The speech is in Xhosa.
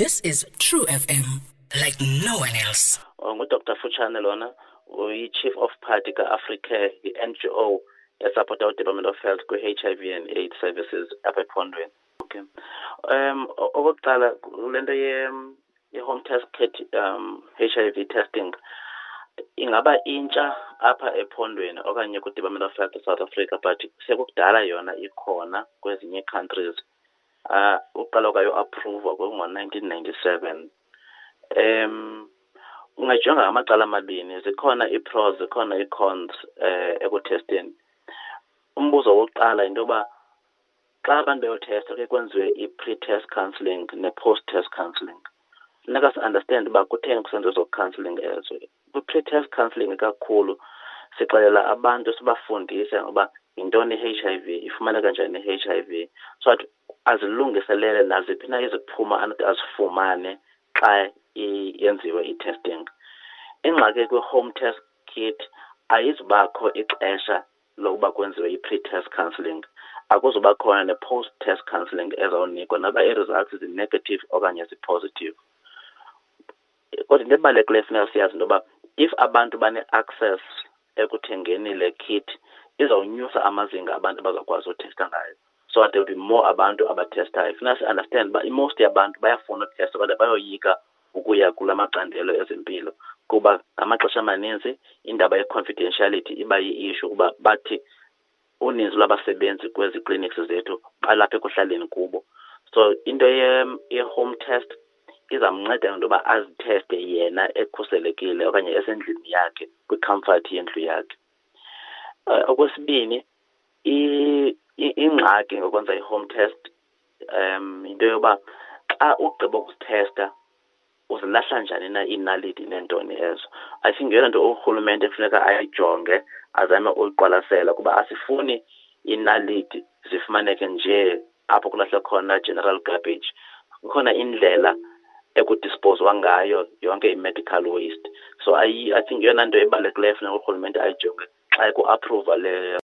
This is True FM, like no one else. Oh, nguDr Futshane lona, uyi-Chief of Party ka-Africare, i-NGO esapota uDepartment of Health kwi-HIV and AIDS services apha ephondweni. Okay. Okokuqala, kule nto ye-home test kit, HIV testing, ingaba intsha apha ephondweni okanye kwi-Department of Health South Africa, but sekukudala yona ikhona kwezinye countries. Uqala kwayo approve ngo-1997. Ungajonga ngamacala amabini, zikhona ii-pros, zikhona ii-cons ekuthesteni. Umbuzo wokuqala yinto yoba xa abantu beyothesta kuye kwenziwe i-pre-test counselling ne-post-test counselling. Funeka si-understand uba kutheni kusenziwa ezo counselling ezo. Kwi-pre-test counselling kakhulu sixelela abantu, sibafundise ngoba yintoni i-HIV, ifumaneka njani i-HIV, so that azilungiselele naziphi na iziphumo anothi azifumane xa yenziwe i-testing. Ingxaki kwi-home test kit, ayizubakho ixesha lokuba kwenziwe i-pre-test counselling, akuzuba khona ne-post-test counselling ezawunikwa noba ii-results zi-negative okanye zi-positive. Kodwa into ebalulekileyo funeka siyazi into yoba if abantu bane-access ekuthengeni le kit, izawunyusa amazinga abantu abazawukwazi uthesta ngayo, so that there will be more abantu abathestayo. Funeka si-understand uba i-most yabantu bayafuna uthesta kodwa bayoyika ukuya kula macandelo ezempilo, kuba ngamaxesha amaninzi indaba ye-confidentiality iba yi-issue, kuba bathi uninzi lwabasebenzi kwezi clinics zethu balapha ekuhlaleni kubo. So into ye-home test izamnceda into yoba azitheste yena ekhuselekile okanye esendlini yakhe, kwi-comfort yendlu yakhe. Okwesibini, ingxaki ngokwenza i-home test, into yoba xa ugqiba ukuzithesta uzilahla njani na iinaliti neentoni ezo. I think yeyona nto urhulumente kufuneka ayijonge, azame uyiqwalasela, kuba asifuni iinaliti zifumaneke nje apho kulahlwe khona general garbage. Kukhona indlela ekudisposwa ngayo yonke i-medical waste. So I think yeyona nto ebalulekileyo funeka urhulumente ayijonge xa eku-approva le.